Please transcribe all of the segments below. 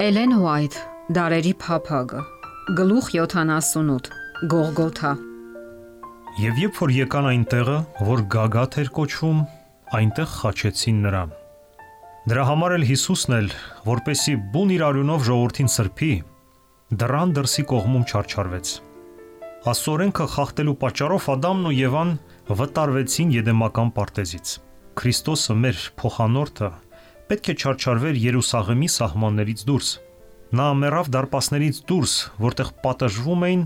Էլեն Ուայթ, Դարերի փափագը, գլուխ 78, Գողգոթա։ Եվ երբ որ եկան այն տեղը, որ Գագաթ էր կոչվում, այնտեղ խաչեցին նրան։ Դրա համար էլ Հիսուսն էլ, որպեսի բուն իր արյունով ժողովրդին սրբի, դռան դրսի կողմում չարչարվեց։ Աստծո օրենքը խախտելու պատճառով Ադամն ու Եվան վտարվեցին Եդեմական պարտեզից։ Քրիստոսը, մեր փոխանորդը, պետք է չարչարվեր Երուսաղեմի սահմաններից դուրս։ Նա մեռավ դարպասներից դուրս, որտեղ պատժվում էին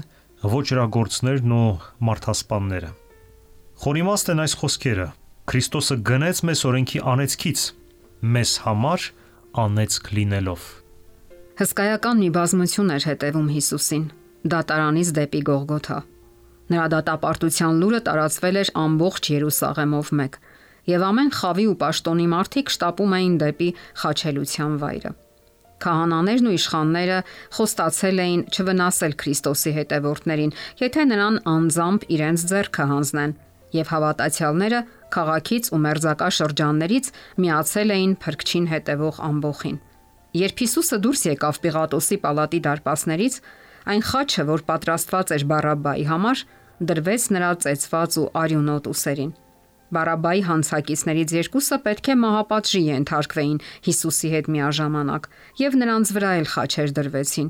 ոճրագործներն ու մարդասպանները։ Խորիմաստ են այս խոսքերը. Քրիստոսը գնեց մեզ օրենքի անեծքից, մեզ համար անեծք լինելով։ Հսկայական մի բազմություն էր հետևում Հիսուսին, դատարանից դեպի Գողգոթա։ Նրա դատապարտության լուրը տարածվել էր ամբողջ Երուսաղեմով մեկ, եւ ամեն խավի ու պաշտոնի մարդիկ շտապում էին դեպի խաչելության վայրը։ Քահանաներն ու իշխանները խոստացել էին չվնասել Քրիստոսի հետևորդներին, եթե նրան անձամբ իրենց ձեռքը հանձնեն, եւ հավատացյալները քաղաքից ու մերձակա շրջաններից միացել էին փրկչին հետևող ամբոխին։ Երբ Հիսուսը դուրս եկավ Պիղատոսի պալատի դարպասներից, այն խաչը, որ պատրաստված էր Բարաբբայի համար, դրվեց նրա ծեծված ու արյունոտ ուսերին։ Բարաբբայի հանցակիցներից երկուսը պետք է մահապատժի ենթարկվեին Հիսուսի հետ միաժամանակ, եւ նրանց վրա էլ խաչեր դրվեցին։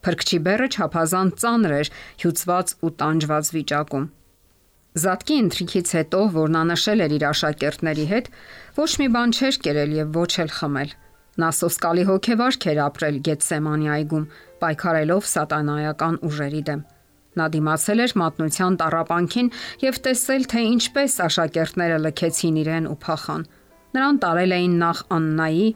Փրկչի բեռը չափազանց ծանր էր, հյուծված ու տանջված վիճակում։ Զատկի ընթրիքից հետո, որ նա նշել էր իր աշակերտների հետ, ոչ մի բան չէր կերել եւ ոչ էլ խմել։ Նա սոսկալի հոգեվարք էր ապրել Գեթսեմանի այգում, պայքարելով սատանայական ուժերի դեմ։ Նա դիմացել էր մատնության տառապանքին եւ տեսել, թե ինչպես աշակերտները լքեցին իրեն ու փախան։ Նրան տարել էին նախ Աննայի,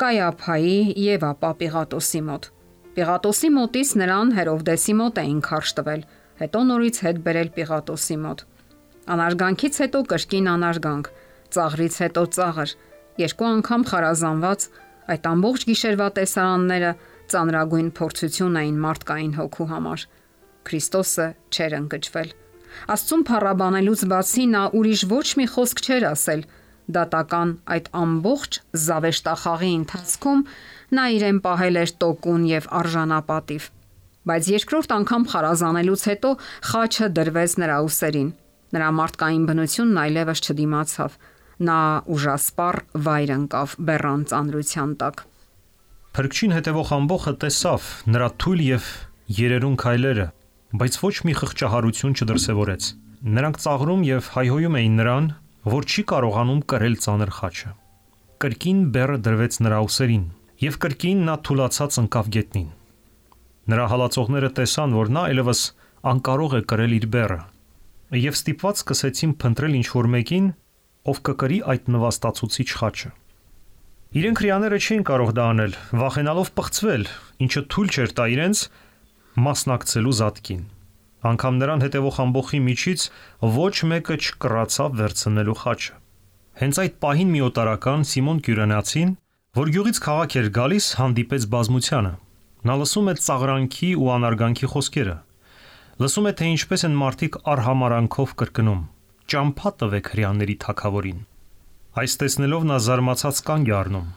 Կայափայի եւ ապա Պիղատոսի մոտ։ Պիղատոսի մոտից նրան Հերովդեսի մոտ էին քարշ տվել, հետո նորից հետ բերել Պիղատոսի մոտ։ Անարգանքից հետո կրկին անարգանք, ծաղրից հետո ծաղր, երկու անգամ խարազանված, այդ ամբողջ գիշերվա տեսարանները ծանրագույն փորձություն էին մարդկային հոգու համար։ Քրիստոսը չէր ընկճվել։ Աստծուն փառաբանելուց բացի նա ուրիշ ոչ մի խոսք չէր ասել։ Դատական այդ ամբողջ զավեշտախաղի ընթացքում նա իրեն պահել էր տոկուն եւ արժանապատիվ։ Բայց երկրորդ անգամ խարազանելուց հետո խաչը դրվեց նրա ուսերին։ Նրա մարդկային բնությունն այլևս չդիմացավ։ Նա ուժասպառ վայր ընկավ բեռան ծանրության տակ։ Փրկչին հետևող ամբոխը տեսավ նրա թույլ եւ երերուն քայլերը, բայց ոչ մի խղճահարություն չդրսևորեց։ Նրանք ծաղրում եւ հայհոյում էին նրան, որ չի կարողանում կրել ծանր խաչը։ Կրկին բեռը դրվեց նրա ուսերին եւ կրկին նա թուլացած ընկավ գետնին։ Նրա հալածողները տեսան, որ նա այլևս անկարող է կրել իր բեռը եւ ստիպված սկսեցին փնտրել ինչ-որ մեկին, ով կկրի այդ նվաստացուցիչ խաչը։ Իրենք հрьяաները չէին կարող դա անել, վախենալով պղծվել, ինչը թույլ չէր տա իրենց մասնակցելու զատկին։ Անկամ նրան հետևող ամբոխի միջից ոչ մեկը չկռացավ վերցնելու խաչը։ Հենց այդ պահին մի օտարական Սիմոն Կյուրենացին, որ գյուղից քաղաք էր գալիս, հանդիպեց բազմությանը։ Նա լսում է ծաղրանքի ու անարգանքի խոսքերը։ Լսում է, թե ինչպես են մարդիկ արհամարանքով կրկնում. «Ճամփա տվեք հрьяաների թագավորին»։ Այս տեսնելով նա զարմացած կանգ է առնում։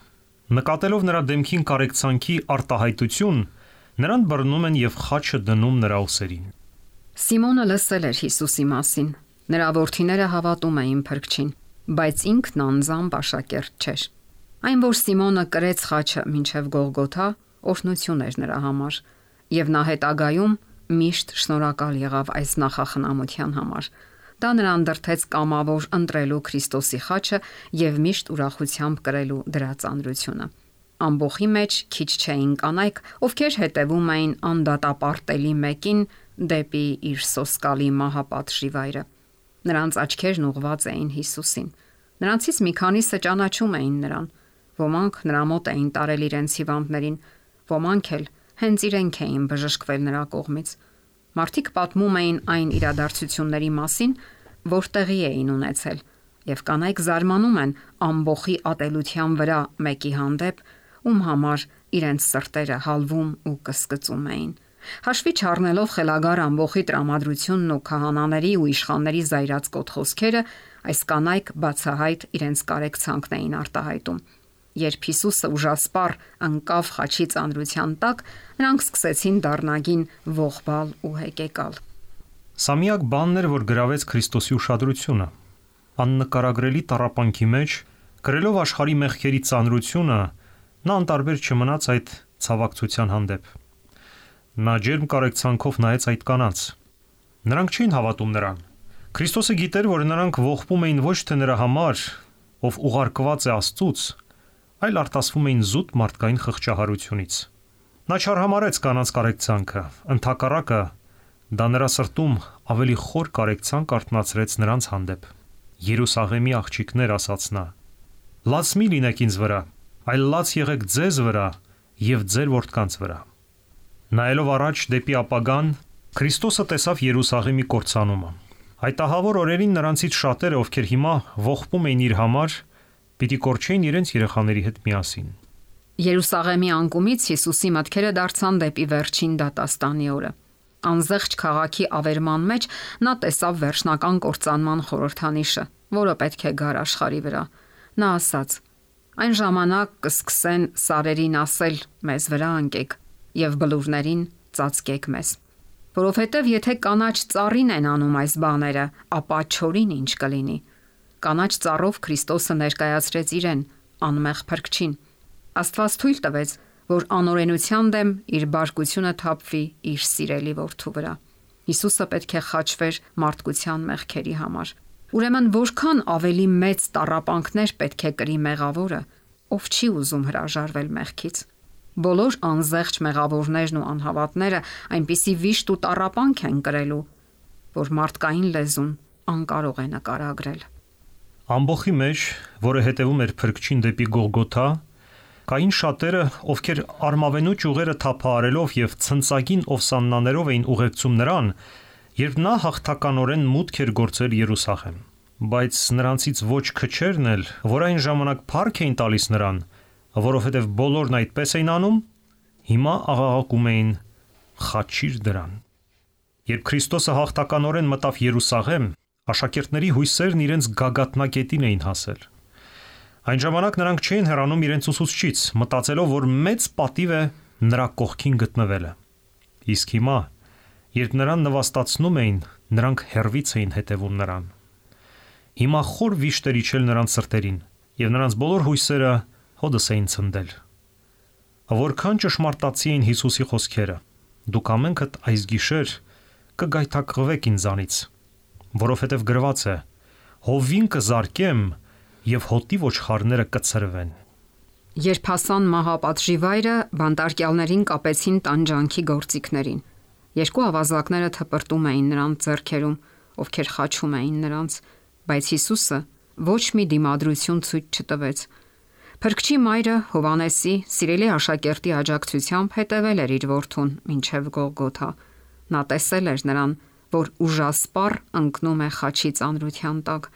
Նկատելով նրա դեմքին կարեկցանքի արտահայտություն, նրան բռնում են եւ խաչը դնում նրա ուսերին։ Սիմոնը լսել էր Հիսուսի մասին։ Նրա որդիները հավատում էին Փրկչին, բայց ինքն անձամբ աշակերտ չէր։ Այն, որ Սիմոնը կրեց խաչը մինչև Գողգոթա, օրհնություն էր նրա համար, եւ նա հետագայում միշտ շնորհակալ եղավ այս նախախնամության համար։ Դա նրան դրթեց կամավոր ընտրելու Քրիստոսի խաչը եւ միշտ ուրախությամբ կրելու դրա ծանրությունը։ Ամբոխի մեջ քիչ չէին կանայք, ովքեր հետևում էին անդատապարտելի մեկին դեպի իր սոսկալի մահապատժի վայրը։ Նրանց աչքերն ուղղված էին Հիսուսին։ Նրանցից մի քանիսը ճանաչում էին նրան։ Ոմանք նրա մոտ էին տարել իրենց հիվանդներին, ոմանք էլ հենց իրենք էին բժշկվել նրա կողմից։ Մարդիկ պատմում էին այն իրադարձությունների մասին, որ տեղի էին ունեցել, եւ կանայք զարմանում են ամբոխի ատելության վրա մեկի հանդեպ, ում համար իրենց սրտերը հալվում ու կսկծում էին։ Հաշվի չառնելով խելագար ամբոխի տրամադրությունն ու քահանաների ու իշխանների զայրացկոտ խոսքերը, այս կանայք բացահայտ իրենց կարեկցանքն էին արտահայտում։ Երբ Հիսուսը ուժասպառ անկավ խաչի ծանրության տակ, նրանք սկսեցին դառնագին ողբալ ու հեկեկալ։ Սա միակ բանն էր, որ գրավեց Քրիստոսի ուշադրությունը։ Աննկարագրելի տառապանքի մեջ, կրելով աշխարհի մեղքերի ծանրությունը, նա անտարբեր չմնաց այդ ցավակցության հանդեպ։ Նա ջերմ կարեկցանքով նայեց այդ կանանց։ Նրանք չէին հավատում նրան։ Քրիստոսը գիտեր, որ նրանք ողբում էին ոչ թե նրա համար, ով ուղարկված է Աստծուց, այլ արտասվում էին զուտ մարդկային խղճահարությունից։ Նա չարհամարեց կանանց կարեկցանքը, ընդհակառակը դա նրա սրտում ավելի խոր կարեկցանք արթնացրեց նրանց հանդեպ։ Երուսաղեմի աղջիկներ, ասաց նա, լաց մի լինեք ինձ վրա, այլ լաց եղեք ձեզ վրա եւ ձեր որդկանց վրա։ Նայելով առաջ դեպի ապագան, Քրիստոսը տեսավ Երուսաղեմի կործանումը։ Այդ ահավոր օրերին նրանցից շատերը, ովքեր հիմա ողբում էին իր համար, պիտի կորչեին իրենց երեխաների հետ միասին։ Երուսաղեմի անկումից Հիսուսի մտքերը դարձան դեպի վերջին դատաստանի օրը։ Անզեղջ քաղաքի ավերման մեջ նա տեսավ վերջնական կործանման խորհրդանիշը, որը պետք է գար աշխարհի վրա։ Նա ասաց. այն ժամանակ կսկսեն սարերին ասել մեզ վրա անկեք եւ բլուրներին ծածկեք մեզ։ Որովհետեւ եթե կանաչ ծառին են անում այս բաները, ապա չորին ինչ կլինի։ Կանաչ ծառով Քրիստոսը ներկայացրեց իրեն անմեղ փրկչին։ Աստված թույլ տվեց, որ անօրենության դեմ իր բարկությունը թափվի իր սիրելի որդու վրա։ Հիսուսը պետք է խաչվեր մարդկության մեղքերի համար։ Ուրեմն որքան ավելի մեծ տառապանքներ պետք է կրի մեղավորը, ով չի ուզում հրաժարվել մեղքից։ Բոլոր անզեղջ մեղավորներն ու անհավատները այնպիսի վիշտ ու տառապանք են կրելու, որ մարդկային լեզուն անկարող է նկարագրել։ Ամբոխի մեջ, որը հետևում էր փրկչին դեպի Գողգոթա, կային շատերը, ովքեր արմավենու ճյուղերը թափահարելով եւ ցնցագին ովսաննաներով էին ուղեկցում նրան, երբ նա հաղթականորեն մուտք էր գործել Երուսաղեմ։ Բայց նրանցից ոչ քչերն էլ, որ այն ժամանակ փառք էին տալիս նրան, որովհետեւ բոլորն այդպես էին անում, հիմա աղաղակում էին. «Խաչիր դրան»։ Երբ Քրիստոսը հաղթականորեն մտավ Երուսաղեմ, աշակերտների հույսերն իրենց գագաթնակետին էին հասել։ Այն ժամանակ նրանք չէին հեռանում իրենց ուսուցչից, մտածելով, որ մեծ պատիվ է նրա կողքին գտնվելը։ Իսկ հիմա, երբ նրան նվաստացնում էին, նրանք հեռվից էին հետևում նրան։ Հիմա խոր վիշտ էր իջել նրանց սրտերին, եւ նրանց բոլոր հույսերը հոդս էին ցնդել։ Որքան ճշմարտացի էին Հիսուսի խոսքերը. «Դուք ամենքդ այս գիշեր կգայթակղվեք ինձանից, որովհետև գրված է. հովին կզարկեմ եւ հոտի ոչխարները կցրվեն»։ Երբ հասան մահապատժի վայրը, բանտարկյալներին կապեցին տանջանքի գործիքներին։ Երկու ավազակները թպրտում էին նրանց ձեռքերում, ովքեր խաչում էին նրանց, բայց Հիսուսը ոչ մի դիմադրություն ցույց չտվեց։ Փրկչի մայրը Հովանեսի սիրելի աշակերտի աջակցությամբ հետևել էր իր որդուն մինչև Գողգոթա։ Նա տեսել էր նրան, որ ուժասպառ ընկնում է խաչի ծանրության տակ,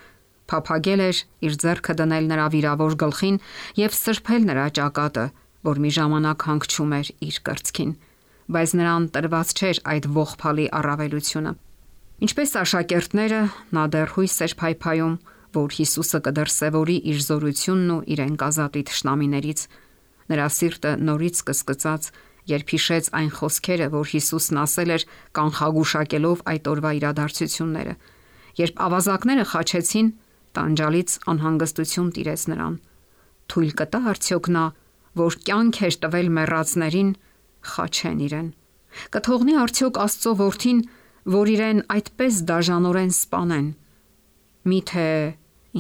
փափագել էր իր ձեռքը դնել նրա վիրավոր գլխին եւ սրբել նրա ճակատը, որ մի ժամանակ հանգչում էր իր կրծքին, բայց նրան տրված չէր այդ ողբալի առավելությունը։ Ինչպես աշակերտները, նա դեռ հույս էր փայփայում, որ Հիսուսը կդրսևորի իր զորությունն ու իրեն կազատի թշնամիներից։ Նրա սիրտը նորից կսկծաց, երբ հիշեց այն խոսքերը, որ Հիսուսն ասել էր կանխագուշակելով այդ օրվա իրադարձությունները։ Երբ ավազակները խաչեցին, տանջալից անհանգստություն տիրեց նրան։ Թույլ կտա արդյոք նա, որ կյանք էր տվել մեռածներին, խաչեն իրեն։ Կթողնի արդյոք Աստծո որդին, որ իրեն այդպես դաժանորեն սպանեն։ Միթե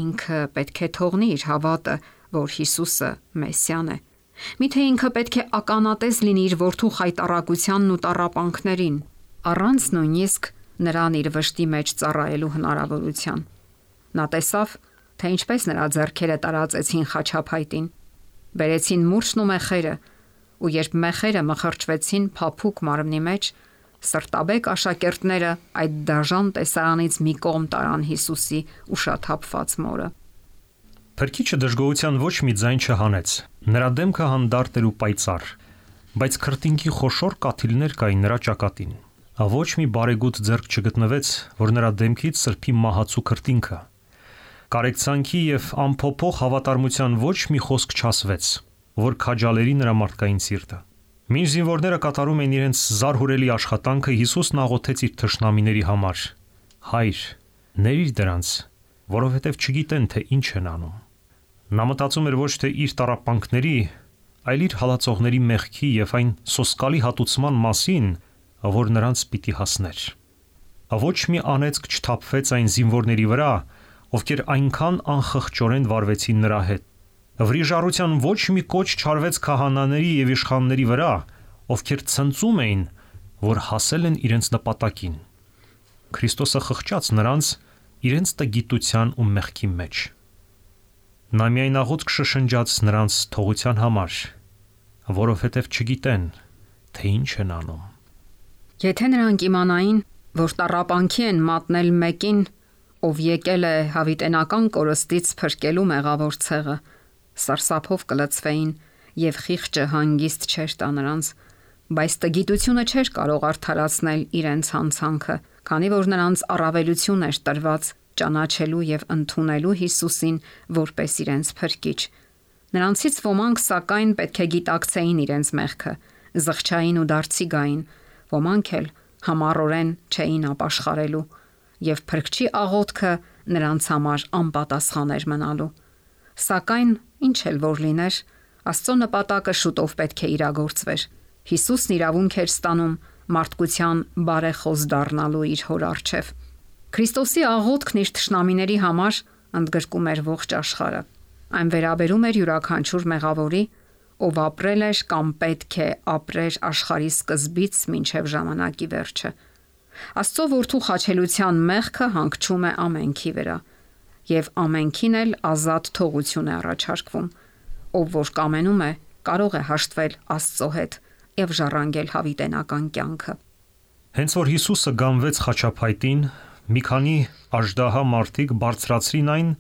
ինքը պետք է թողնի իր հավատը, որ Հիսուսը Մեսիան է։ Միթե ինքը պետք է ականատես լինի իր որդու խայտառակությանն ու տառապանքներին, առանց նույնիսկ նրան իր վշտի մեջ ծառայելու հնարավորության։ Նա տեսավ, թե ինչպես նրա ձեռքերը տարածեցին խաչափայտին, բերեցին մուրճն ու մեխերը, ու երբ մեխերը մխրճվեցին փափուկ մարմնի մեջ, սրտաբեկ աշակերտները այդ դաժան տեսարանից մի կողմ տարան Հիսուսի ուշաթափված մորը։ Փրկիչը դժգոհության ոչ մի ձայն չհանեց։ Նրա դեմքը հանդարտ էր ու պայծառ, բայց քրտինքի խոշոր կաթիլներ կային նրա ճակատին։ Ոչ մի բարեգութ ձեռք չգտնվեց, որ նրա դեմքից սրբի մահացու քրտինքը։ Կարեկցանքի եւ ամփոփող հավատարմության ոչ մի խոսք չասվեց, որ քաջալերի նրա մարդկային սիրտը։ Մինչ զինվորները կատարում էին իրենց զարհուրելի աշխատանքը, Հիսուսն աղոթեց իր թշնամիների համար. Հայր, ների դրանց, որովհետև չգիտեն, թե ինչ են անում։ Նա մտածում էր ոչ թե իր տառապանքների, այլ իր հալածողների մեղքի եւ այն սոսկալի հատուցման մասին, որ նրանց պիտի հասներ։ Ոչ մի անեծք չթափվեց այն զինվորների վրա, ովքեր այնքան անխղճորեն վարվեցին նրա հետ։ Վրիժառության ոչ մի կոչ չարվեց քահանաների եւ իշխանների վրա, ովքեր ցնծում էին, որ հասել են իրենց նպատակին։ Քրիստոսը խղճաց նրանց իրենց տգիտության ու մեղքի մեջ։ Նա միայն աղոթք շշնջաց նրանց թողության համար, որովհետև չգիտեն, թե ինչ են անում։ Եթե նրանք իմանային, որ տառապանքի են մատնել մեկին, ով եկել է հավիտենական կորստից փրկելու մեղավոր ցեղը, սարսափով կլցվեին եւ խիղճը հանգիստ չէր տա նրանց, բայց տգիտությունը չէր կարող արդարացնել իրենց հանցանքը, քանի որ նրանց առավելություն էր տրված ճանաչելու եւ ընդունելու Հիսուսին որպես իրենց փրկիչ։ Նրանցից ոմանք սակայն պետք է գիտակցեին իրենց մեղքը, զղջային ու դարձի գային, ոմանք էլ համառորեն չէին ապաշխարելու, եւ փրկչի աղոթքը նրանց համար անպատասխան էր մնալու։ Սակայն ինչ էլ որ լիներ, Աստծո նպատակը շուտով պետք է իրագործվեր։ Հիսուսն իրավունք էր ստանում մարդկության բարեխոս դառնալու իր հոր առջև։ Քրիստոսի աղոթքն իր թշնամիների համար ընդգրկում էր ողջ աշխարհը։ Այն վերաբերում էր յուրաքանչյուր մեղավորի, ով ապրել էր կամ պետք է ապրեր աշխարհի սկզբից մինչև ժամանակի վերջը։ Աստծո որդու խաչելության մեղքը հանգչում է ամենքի վրա, եւ ամենքին էլ ազատ թողություն է առաջարկվում։ Ով որ կամենում է, կարող է հաշտվել Աստծո հետ եւ ժառանգել հավիտենական կյանքը։ Հենց որ Հիսուսը գանվեց խաչափայտին, մի քանի աժդահա մարդիկ բարձրացրին այն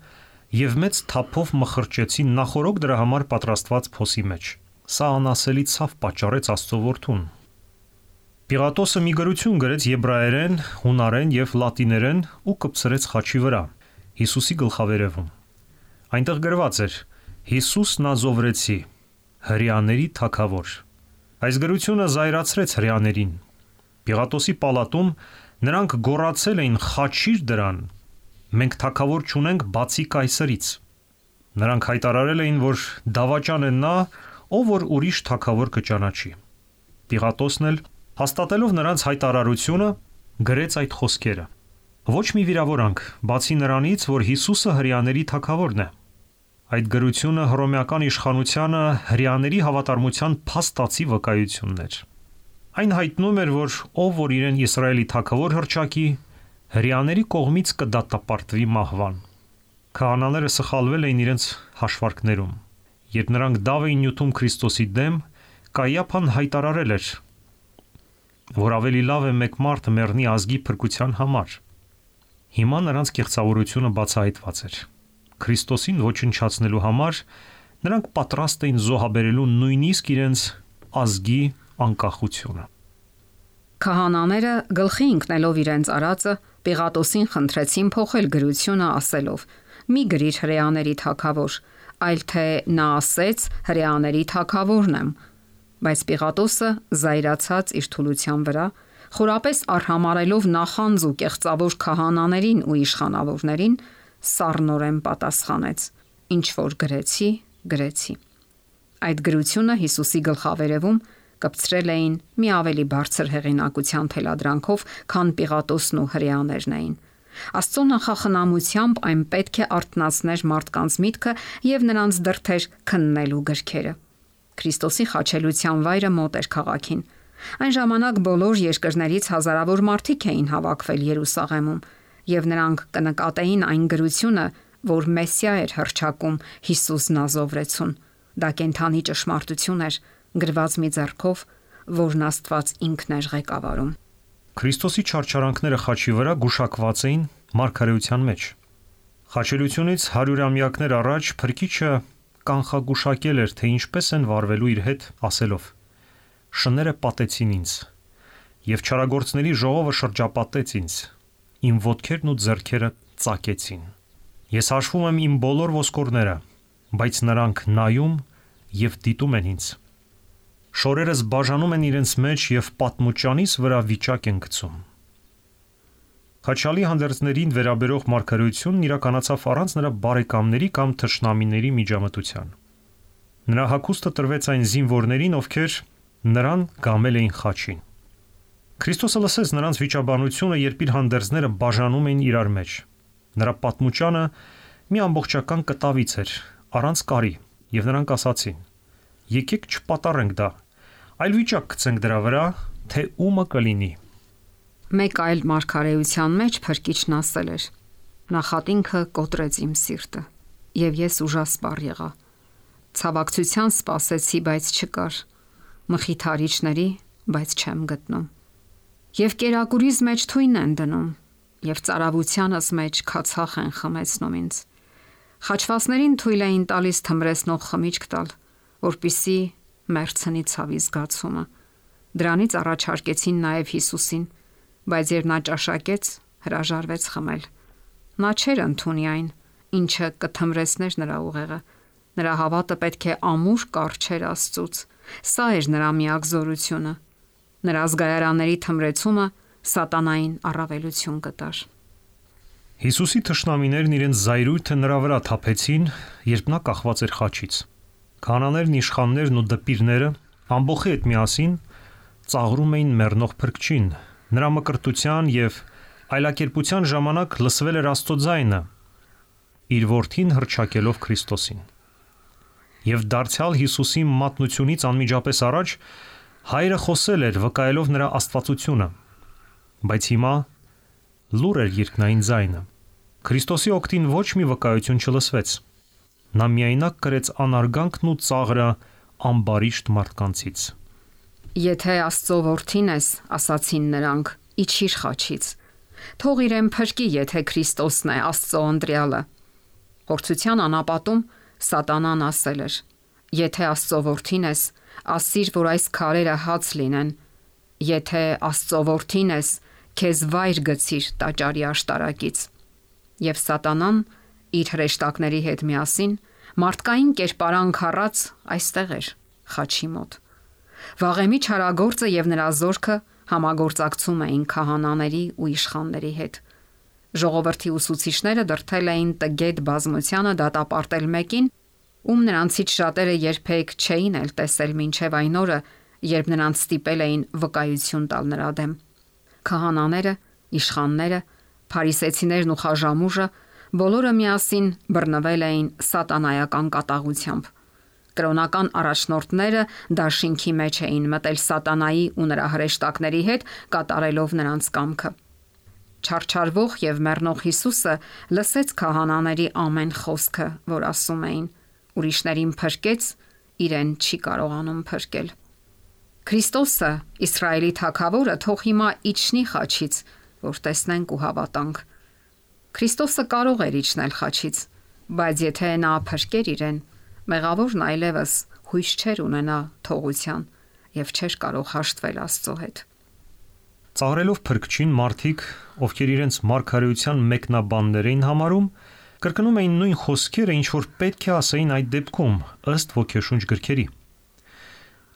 եւ մեծ թափով մխրճեցին նախորոք դրա համար պատրաստված փոսի մեջ։ Սա անասելի ցավ պատճառեց Աստծո որդուն։ Պիղատոսը մի գրություն գրեց եբրայերեն, հունարեն եւ լատիներեն ու կպցրեց խաչի վրա, Հիսուսի գլխավերևում։ Այնտեղ գրված էր. Հիսուս Նազովրեցի, հրեաների թագավոր։ Այս գրությունը զայրացրեց հրեաներին։ Պիղատոսի պալատում նրանք գոռացել էին. «Խաչիր դրան, մենք թագավոր չունենք բացի կայսրից»։ Նրանք հայտարարել էին, որ դավաճան է նա, ով որ ուրիշ թագավոր կճանաչի։ Պիղատոսն էլ, հաստատելով նրանց հայտարարությունը, գրեց այդ խոսքերը. Ոչ մի վիրավորանք, բացի նրանից, որ Հիսուսը հրեաների թագավորն է։ Այդ գրությունը հռոմեական իշխանությանը հրեաների հավատարմության փաստացի վկայությունն էր։ Այն հայտնում էր, որ ով որ իրեն Իսրայելի թագավոր հռչակի, հրեաների կողմից կդատապարտվի մահվան։ Քահանաները սխալվել էին իրենց հաշվարկներում։ Երբ նրանք դավ էին նյութում Քրիստոսի դեմ, Կայիափան հայտարարել էր, որ ավելի լավ է մեկ մարդ մեռնի ազգի փրկության համար։ Հիմա նրանց կեղծավորությունը բացահայտված էր։ Քրիստոսին ոչնչացնելու համար նրանք պատրաստ էին զոհաբերելու նույնիսկ իրենց ազգի անկախությունը։ Քահանաները գլխի ընկնելով իրենց արածը, Պիղատոսին խնդրեցին փոխել գրությունը ասելով. «Մի գրիր հրեաների թագավոր, այլ թե նա ասեց հրեաների թագավորն եմ»։ Բայց Պիղատոսը, զայրացած իր թուլության վրա, խորապես արհամարելով նախանձ ու կեղծավոր քահանաներին ու իշխանավորներին, սառնորեն պատասխանեց. «Ինչ որ գրեցի, գրեցի»։ Այդ գրությունը Հիսուսի գլխավերևում կպցրել էին մի ավելի բարձր հեղինակության թելադրանքով, քան Պիղատոսն ու հրեաներն էին։ Աստծո նախախնամությամբ այն պետք է արթնացներ մարդկանց միտքը եւ նրանց դրդեր քննելու գրքերը։ Քրիստոսի խաչելության վայրը մոտ էր քաղաքին։ Այն ժամանակ բոլոր երկրներից հազարավոր մարդիկ էին հավաքվել Երուսաղեմում, եւ նրանք կնկատեին այն գրությունը, որ Մեսիա էր հռչակում Հիսուս Նազովրեցուն։ Դա կենթանի ճշմարտություն էր, գրված մի ձեռքով, որն Աստված ինքն էր ղեկավարում։ Քրիստոսի չարչարանքները խաչի վրա գուշակված էին մարգարեության մեջ։ Խաչելությունից 100-ամյակներ առաջ Փրկիչը կանխագուշակել էր, թե ինչպես են վարվելու իր հետ, ասելով. «Շները պատեցին ինձ, եւ չարագործների ժողովը շրջապատեց ինձ, իմ ոտքերն ու ձեռքերը ծակեցին»։ Ես հաշվում եմ իմ բոլոր ոսկորները, բայց նրանք նայում եւ դիտում են ինձ։ Շորերս բաժանում են իրենց մեջ եւ պատմուճանիս վրա վիճակ են գցում։ Խաչալի հանդերձներին վերաբերող մարգարեությունն իրականացավ առանց նրա բարեկամների կամ թշնամիների միջամտության։ Նրա հագուստը տրվեց այն զինվորներին, ովքեր նրան գամել էին խաչին։ Քրիստոսը լսեց նրանց վիճաբանությունը, երբ իր հանդերձները բաժանում էին իրար մեջ։ Նրա պատմուճանը մի ամբողջական կտավից էր, առանց կարի, եւ նրանք ասացին. «Եկեք չպատառենք դա, այլ վիճակ գցենք դրա վրա, թե ումը կլինի»։ Մեկ այլ մարգարեության մեջ Փրկիչն ասել էր. «Նախատինքը կոտրեց իմ սիրտը, եւ ես ուժասպառ եղա։ Ցավակցության սպասեցի, բայց չկար, մխիթարիչների, բայց չեմ գտնում։ Եվ կերակուրիս մեջ թույն են դնում, եւ ծարավությանս մեջ քացախ են խմեցնում ինձ։ Խաչվածներին թույլ էին տալիս թմրեցնող խմիչք տալ, որպիսի մեռցնի ցավի զգացումը։ Դրանից առաջարկեցին նաեւ Հիսուսին, բայց երբ նա ճաշակեց, հրաժարվեց խմել։ Նա չէր ընդունի այն, ինչը կթմրեցներ նրա ուղեղը։ Նրա հավատը պետք է ամուր կառչեր Աստծուց։ Սա էր նրա միակ զորությունը։ Նրա զգայարանների թմրեցումը սատանային առավելություն կտար։ Հիսուսի թշնամիներն իրենց զայրույթը նրա վրա թափեցին, երբ նա կախված էր խաչից։ Քահանաներն, իշխաններն ու դպիրները ամբոխի հետ միասին ծաղրում էին մեռնող Փրկչին։ Նրա մկրտության եւ այլակերպության ժամանակ լսվել էր Աստծո ձայնը, իր որդին հռչակելով Քրիստոսին։ Եվ դարձյալ Հիսուսի մատնությունից անմիջապես առաջ հայրը խոսել էր, վկայելով նրա աստվածությունը։ Բայց հիմա լուր էր երկնային ձայնը։ Քրիստոսի օգտին ոչ մի վկայություն չլսվեց։ Նա միայնակ կրեց անարգանքն ու ծաղրը ամբարիշտ մարդկանցից։ Եթե Աստծո որդին ես, ասացին նրանք, իջիր խաչից։ Թող իրեն փրկի, եթե Քրիստոսն է Աստծո ընտրյալը։ Փորձության անապատում Սատանան ասել էր. Եթե Աստծո որդին ես, ասիր, որ այս քարերը հաց լինեն։ Եթե Աստծո որդին ես, քեզ վայր գցիր տաճարի աշտարակից։ Եվ Սատանան իր հրեշտակների հետ միասին մարդկային կերպարանք առած այստեղ էր, խաչի մոտ։ Վաղեմի չարագործը եւ նրա զորքը համագործակցում էին քահանաների ու իշխանների հետ։ Ժողովրդի ուսուցիչները դրթել էին տգետ բազմությանը դատապարտել մեկին, ում նրանցից շատերը երբեք չէին էլ տեսել մինչև այն օրը, երբ նրանց ստիպել էին վկայություն տալ նրա դեմ։ Քահանաները, իշխանները, փարիսեցիներն ու խաժամուժը բոլորը միասին բռնվել էին սատանայական կատաղությամբ։ Կրոնական առաջնորդները դաշինքի մեջ էին մտել սատանայի ու նրա հրեշտակների հետ, կատարելով նրանց կամքը։ Չարչարվող եւ մեռնող Հիսուսը լսեց քահանաների ամեն խոսքը, որ ասում էին. ուրիշներին փրկեց, իրեն չի կարողանում փրկել։ Քրիստոսը, Իսրայելի թագավորը, թող հիմա իջնի խաչից, որ տեսնենք ու հավատանք։ Քրիստոսը կարող էր իջնել խաչից, բայց եթե նա փրկեր իրեն, մեղավորն այլևս հույս չէր ունենա թողության եւ չէր կարող հաշտվել Աստծո հետ։ Ծաղրելով Փրկչին մարդիկ, ովքեր իրենց մարգարեության մեկնաբաններ էին համարում, կրկնում էին նույն խոսքերը, ինչ որ պետք է ասեին այդ դեպքում, ըստ ոգեշունչ գրքերի։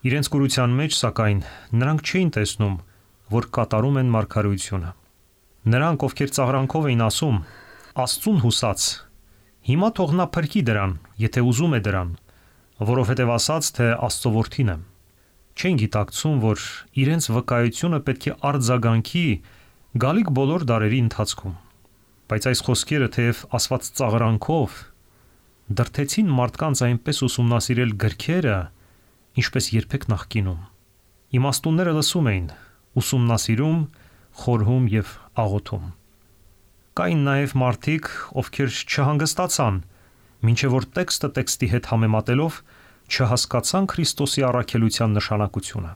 Իրենց կուրության մեջ, սակայն, նրանք չէին տեսնում, որ կատարում են մարգարեությունը։ Նրանք, ովքեր ծաղրանքով էին ասում. Աստծուն հուսած, հիմա թող նա փրկի դրան, եթե ուզում է դրան, որովհետև ասաց, թե Աստծո որդին եմ։ Չեն գիտակցում, որ իրենց վկայությունը պետք է արձագանքի գալիք բոլոր դարերի ընթացքում։ Բայց այս խոսքերը, թեև ասված ծաղրանքով, դրթեցին մարդկանց այնպես ուսումնասիրել գրքերը, ինչպես երբեք նախկինում։ Իմաստունները լսում էին, ուսումնասիրում, խորհում եւ աղոթում։ Կային նաև մարդիկ, ովքեր չհանգստացան, մինչև որ տեքստը տեքստի հետ համեմատելով չհասկացան Քրիստոսի առաքելության նշանակությունը։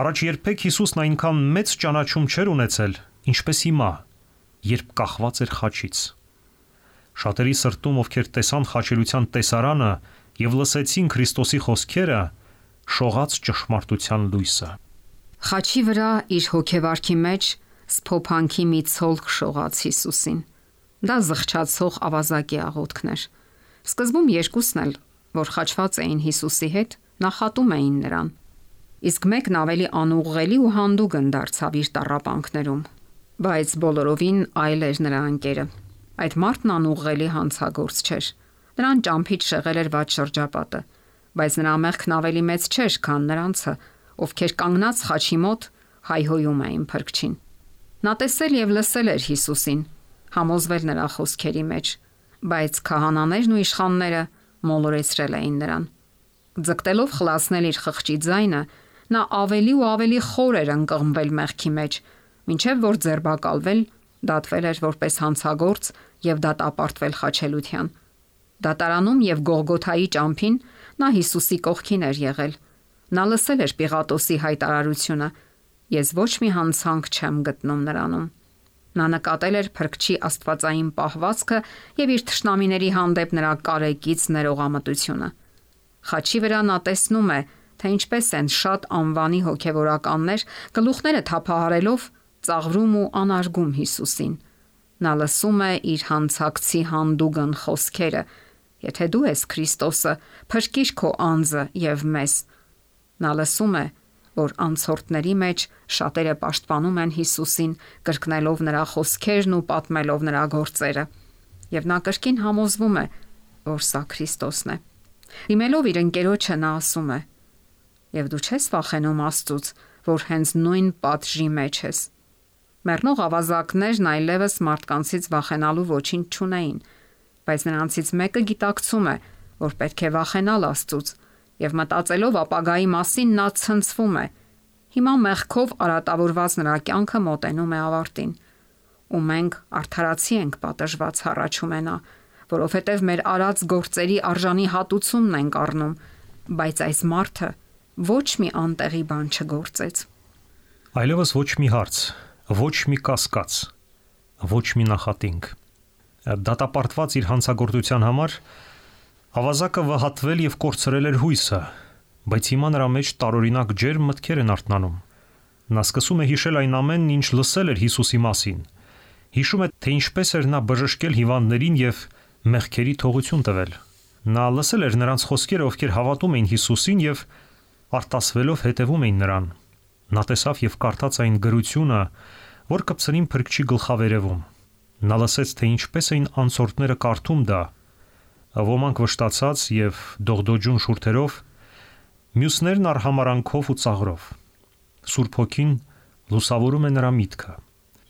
Առաջ երբեք Հիսուսն այնքան մեծ ճանաչում չէր ունեցել, ինչպես հիմա, երբ կախված էր խաչից։ Շատերի սրտում, ովքեր տեսան խաչելության տեսարանը եւ լսեցին Քրիստոսի խոսքերը, շողաց ճշմարտության լույսը։ Խաչի վրա իր հոգեվարքի մեջ սփոփանքի մի ցոլք շողաց Հիսուսին։ Դա զղջացող ավազակի աղոթքն էր։ Սկզբում երկուսն էլ, որ խաչված էին Հիսուսի հետ, նախատում էին նրան։ Իսկ մեկն ավելի անուղղելի ու հանդուգն դարձավ իր տառապանքներում, բայց բոլորովին այլ էր նրա ընկերը։ Այդ մարդն անուղղելի հանցագործ չէր։ Նրան ճամփից շեղել էր վատ շրջապատը, բայց նրա մեղքն ավելի մեծ չէր, քան նրանցը, ովքեր կանգնած խաչի մոտ հայհոյում էին փրկչին։ Նա տեսել եւ լսել էր Հիսուսին, համոզվել նրա խոսքերի մեջ, բայց քահանաներն ու իշխանները մոլորեցրել էին նրան։ Ձգտելով խլացնել իր խղճի ձայնը, նա ավելի ու ավելի խոր էր ընկղմվել մեղքի մեջ, մինչև որ ձերբակալվել, դատվել էր որպես հանցագործ եւ դատապարտվել խաչելության։ Դատարանում եւ Գողգոթայի ճամփին նա Հիսուսի կողքին էր եղել։ Նա լսել էր Պիղատոսի հայտարարությունը. «Ես ոչ մի հանցանք չեմ գտնում նրանում»։ Նա նկատել էր Փրկչի աստվածային պահվածքը եւ իր թշնամիների հանդեպ նրա կարեկից ներողամտությունը։ Խաչի վրա նա տեսնում է, թե ինչպես են շատ անվանի հոգեվորականներ գլուխները թափահարելով ծաղրում ու անարգում Հիսուսին։ Նա լսում է իր հանցակցի հանդուգն խոսքերը. «Եթե դու ես Քրիստոսը, փրկիր քո անձը եւ մեզ»։ Նա լսում է, որ անցորդների մեջ շատերը պաշտպանում են Հիսուսին, կրկնելով նրա խոսքերն ու պատմելով նրա գործերը, եւ նա կրկին համոզվում է, որ սա Քրիստոսն է։ Դիմելով իր ընկերոջը նա ասում է. «Եվ դու չես վախենում Աստծուց, որ հենց նույն պատժի մեջ ես»։ Մեռնող ավազակներն այլևս մարդկանցից վախենալու ոչինչ չունեին, բայց նրանցից մեկը գիտակցում է, որ պետք է վախենալ Աստծուց, եւ մտածելով ապագայի մասին նա ցնցվում է։ Հիմա մեղքով արատավորված նրա կյանքը մոտենում է ավարտին, ու մենք արդարացի ենք պատժված, հառաչում է նա, որովհետև մեր արած գործերի արժանի հատուցումն ենք առնում, բայց այս մարդը ոչ մի անտեղի բան չգործեց։ Այլևս ոչ մի հարց, ոչ մի կասկած, ոչ մի նախատինք։ Դատապարտված իր հանցագործության համար ավազակը վհատվել եւ կորցրել էր հույսը, բայց հիմա նրա մեջ տարօրինակ ջերմ մտքեր են արթնանում։ Նա սկսում է հիշել այն ամենն, ինչ լսել էր Հիսուսի մասին։ Հիշում է, թե ինչպես էր նա բժշկել հիվանդներին եւ մեղքերի թողություն տվել։ Նա լսել էր նրանց խոսքերը, ովքեր հավատում էին Հիսուսին եւ արտասվելով հետևում էին նրան։ Նա տեսավ եւ կարդաց այն գրությունը, որ կպցրին Փրկչի գլխավերևում։ Նա լսեց, թե ինչպես էին անցորդները կարդում դա, ոմանք վշտացած եւ դողդոջուն շուրթերով, մյուսներն արհամարանքով ու ծաղրով։ Սուրբ Հոգին լուսավորում է նրա միտքը,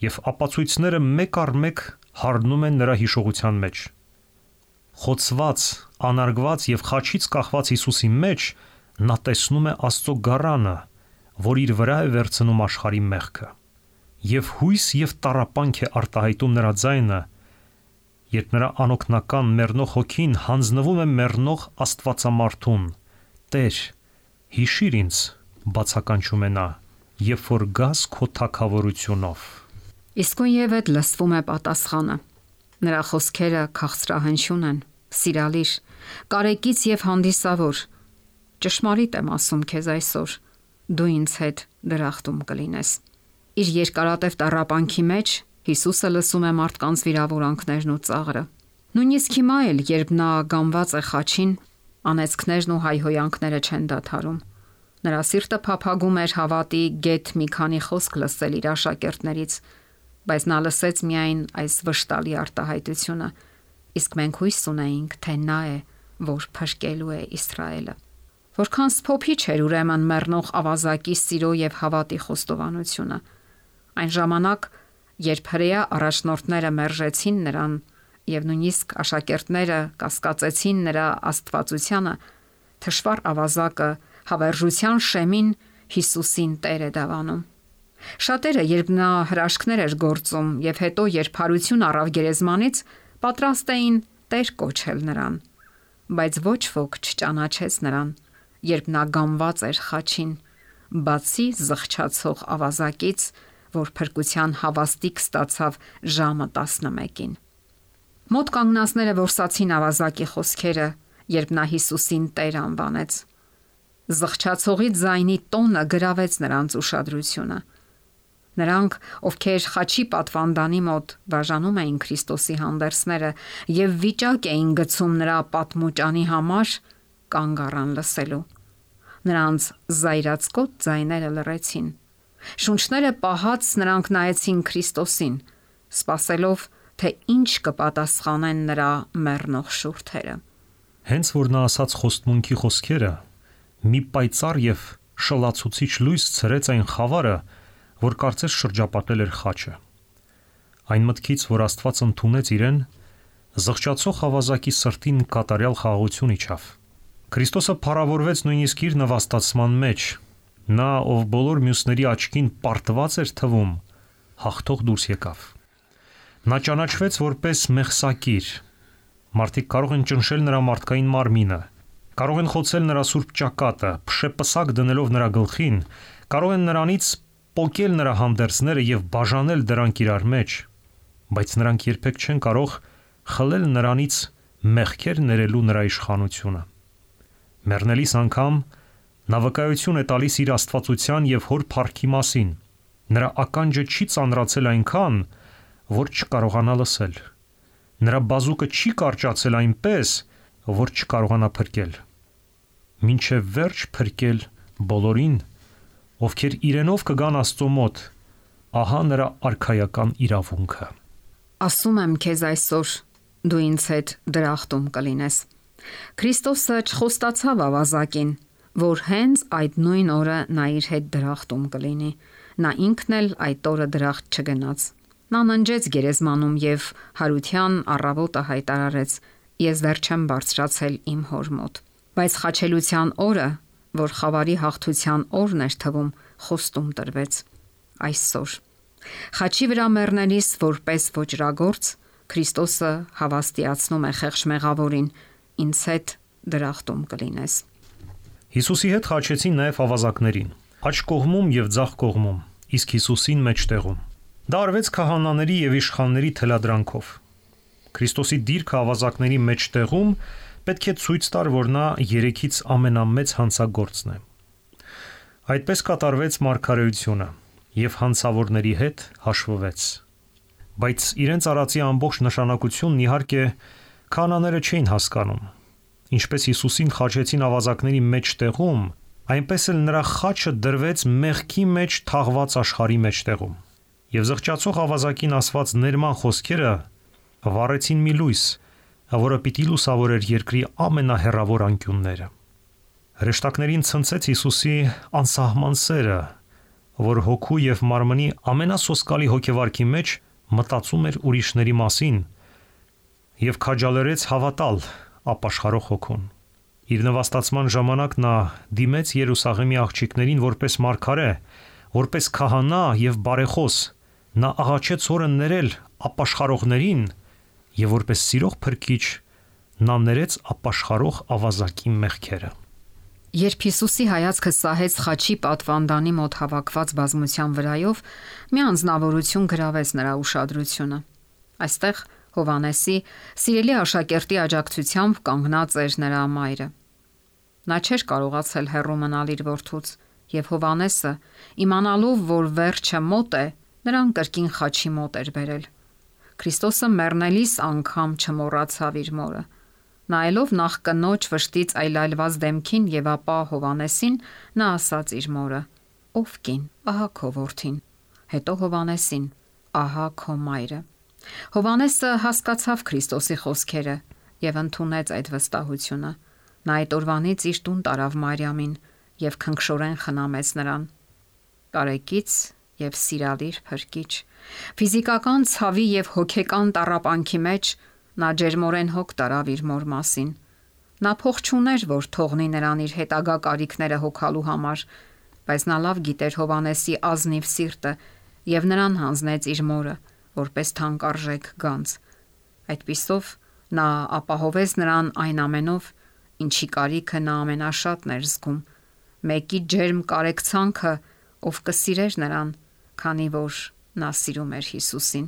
եւ ապացույցները մեկ առ մեկ հառնում են նրա հիշողության մեջ։ Խոցված, անարգված եւ խաչից կախված Հիսուսի մեջ նա տեսնում է Աստծո գառանը, որ իր վրա է վերցնում աշխարհի մեղքը։ Եվ հույս եւ տառապանք է արտահայտում նրա ձայնը, երբ նրա անօգնական մեռնող հոգին հանձնվում է մեռնող Աստվածամարթուն։ Տեր, հիշիր ինձ, բացականչում է նա, երբ որ գաս քո թագավորությունով։ Իսկույնև այդ լսվում է պատասխանը։ Նրա խոսքերը քաղցրահնչյուն են, սիրալիր, կարեկից եւ հանդիսավոր։ Ճշմարիտ եմ ասում քեզ այսօր, դու ինձ հետ դրախտում կլինես։ Իր երկարատև տառապանքի մեջ Հիսուսը լսում է մարդկանց վիրավորանքներն ու ծաղրը։ Նույնիսկ հիմա էլ, երբ նա գամված է խաչին, անեծքներն ու հայհոյանքները չեն դադարում։ Նրա սիրտը փափագում էր հավատի գեթ մի քանի խոսք լսել իր աշակերտներից, բայց նա լսեց միայն այս վշտալի արտահայտությունը, իսկ մենք հույս ունեինք, թե նա է, որ փրկելու է Իսրայելը։ Որքան սփոփիչ էր ուրեմն մեռնող ավազակի սիրո եւ հավատի խոստովանությունը։ Այն ժամանակ, երբ հրեա առաջնորդները մերժեցին նրան եւ նույնիսկ աշակերտները կասկածեցին նրա աստվածությանը, թշվառ ավազակը հավերժության շեմին Հիսուսին Տեր է դավանում։ Շատերը, երբ նա հրաշքներ էր գործում եւ հետո երբ հարություն առավ գերեզմանից, պատրաստ էին Տեր կոչել նրան, բայց ոչ ոք չճանաչեց նրան, երբ նա գամված էր խաչին, բացի զղջացող ավազակից, որ փրկության հավաստիք ստացավ ժամը 11-ին։ Մոտ կանգնածները որսացին ավազակի խոսքերը, երբ նա Հիսուսին Տեր անվանեց։ Զղջացողի ձայնի տոնը գրավեց նրանց ուշադրությունը։ Նրանք, ովքեր խաչի պատվանդանի մոտ բաժանում էին Քրիստոսի հանդերձները եւ վիճակ էին գցում նրա պատմուճանի համար, կանգ առան լսելու։ Նրանց զայրացկոտ ձայները լռեցին։ Շունչները պահած նրանք նայեցին Քրիստոսին, սպասելով, թե ինչ կպատասխանեն նրա մեռնող շուրթերը։ Հենց որ նա ասաց խոստմունքի խոսքերը, մի պայծառ եւ շլացուցիչ լույս ցրեց այն խավարը, որ կարծես շրջապատել էր խաչը։ Այն մտքից, որ Աստված ընդունեց իրեն, զղջացող ավազակի սրտին կատարյալ խաղաղություն իջավ։ Քրիստոսը փառավորվեց նույնիսկ իր նվաստացման մեջ։ Նա, ով բոլոր մյուսների աչքին պարտված էր թվում, հաղթող դուրս եկավ։ Նա ճանաչվեց որպես մեղսակիր։ Մարդիկ կարող են ճնշել նրա մարդկային մարմինը, կարող են խոցել նրա սուրբ ճակատը, փշեպսակ դնելով նրա գլխին, կարող են նրանից պոկել նրա հանդերձները եւ բաժանել դրանք իրար մեջ, բայց նրանք երբեք չեն կարող խլել նրանից մեղքեր ներելու նրա իշխանությունը։ Մեռնելիս անգամ նա վկայություն է տալիս իր աստվածության եւ հոր փառքի մասին։ Նրա ականջը չի ծանրացել այնքան, որ չկարողանա լսել։ Նրա բազուկը չի կարճացել այնպես, որ չկարողանա փրկել։ Մինչև վերջ փրկել բոլորին, ովքեր իրենով կգան Աստծո մոտ, ահա նրա արքայական իրավունքը։ Ասում եմ քեզ այսօր, դու ինձ հետ դրախտում կլինես։ Քրիստոսը չխոստացավ ավազակին, որ հենց այդ նույն օրը նա իր հետ դրախտում կլինի։ Նա ինքն էլ այդ օրը դրախտ չգնաց։ Նա ննջեց գերեզմանում եւ հարության առավոտը հայտարարեց. Ես դեռ չեմ բարձրացել իմ հոր մոտ։ Բայց խաչելության օրը, որ խավարի հաղթության օրն էր թվում, խոստում տրվեց այսօր։ Խաչի վրա մեռնելիս որպես ոճրագործ Քրիստոսը հավաստիացնում է խեղճ մեղավորին. ինձ հետ դրախտում կլինես։ Հիսուսի հետ խաչեցին նաև ավազակներին, աջ կողմում եւ ձախ կողմում, իսկ Հիսուսին մեջտեղում։ Դա արվեց քահանաների եւ իշխանների թելադրանքով։ Քրիստոսի դիրքը ավազակների մեջտեղում պետք է ցույց տար, որ նա երեքից ամենամեծ հանցագործն է։ Այդպես կատարվեց մարգարեությունը եւ հանցավորների հետ հաշվվեց։ Բայց իրենց արածի ամբողջ նշանակությունն իհարկե քահանաները չէին հասկանում։ Ինչպես Հիսուսին խաչեցին ավազակների մեջտեղում, այնպես էլ նրա խաչը դրվեց մեղքի մեջ թաղված աշխարհի մեջտեղում։ Եվ զղջացող ավազակին ասված ներման խոսքերը վառեցին մի լույս, որը պիտի լուսավորեր երկրի ամենահեռավոր անկյունները։ Հրեշտակներին ցնցեց Հիսուսի անսահման սերը, որ հոգու եւ մարմնի ամենասոսկալի հոգեվարքի մեջ մտածում էր ուրիշների մասին եւ քաջալերեց հավատալ ապաշխարող հոգուն։ Իր նվաստացման ժամանակ նա դիմեց Երուսաղեմի աղջիկներին որպես մարգարե, որպես քահանա եւ բարեխոս։ Նա աղաչեց Հորը ներել ապաշխարողներին եւ որպես սիրող փրկիչ նա ներեց ապաշխարող ավազակի մեղքերը։ Երբ Հիսուսի հայացքը սահեց խաչի պատվանդանի մոտ հավաքված բազմության վրայով, մի անձնավորություն գրավեց նրա ուշադրությունը։ Այստեղ Հովանեսի սիրելի աշակերտի աջակցությամբ կանգնած էր նրա մայրը։ Նա չէր կարողացել հեռու մնալ իր որդուց, եւ Հովանեսը, իմանալով, որ վերջը մոտ է, նրան կրկին խաչի մոտ էր բերել։ Քրիստոսը մեռնելիս անգամ չմոռացավ իր մորը։ Նայելով նախ կնոջ վշտից այլայլված դեմքին եւ ապա Հովանեսին, նա ասաց իր մորը. «Ով կին, ահա քո որդին»։ Հետո Հովանեսին. «Ահա քո մայրը»։ Հովանեսը հասկացավ Քրիստոսի խոսքերը եւ ընդունեց այդ վստահությունը։ Նա այդ օրվանից իր տուն տարավ Մարիամին եւ քնքշորեն խնամեց նրան։ Տարեկից եւ սիրալիր փրկիչ, ֆիզիկական ցավի եւ հոգեկան տառապանքի մեջ նա ջերմորեն հոգ տարավ իր մոր մասին։ Նա փող չուներ, որ թողնի նրան իր հետագա կարիքները հոգալու համար, բայց նա լավ գիտեր Հովանեսի ազնիվ սիրտը եւ նրան հանձնեց իր մորը, որպես թանկարժեք գանձ։ Այդպիսով նա ապահովեց նրան այն ամենով, ինչի կարիքը նա ամենաշատն էր զգում, մեկի ջերմ կարեկցանքը, ով կսիրեր նրան, քանի որ նա սիրում էր Հիսուսին։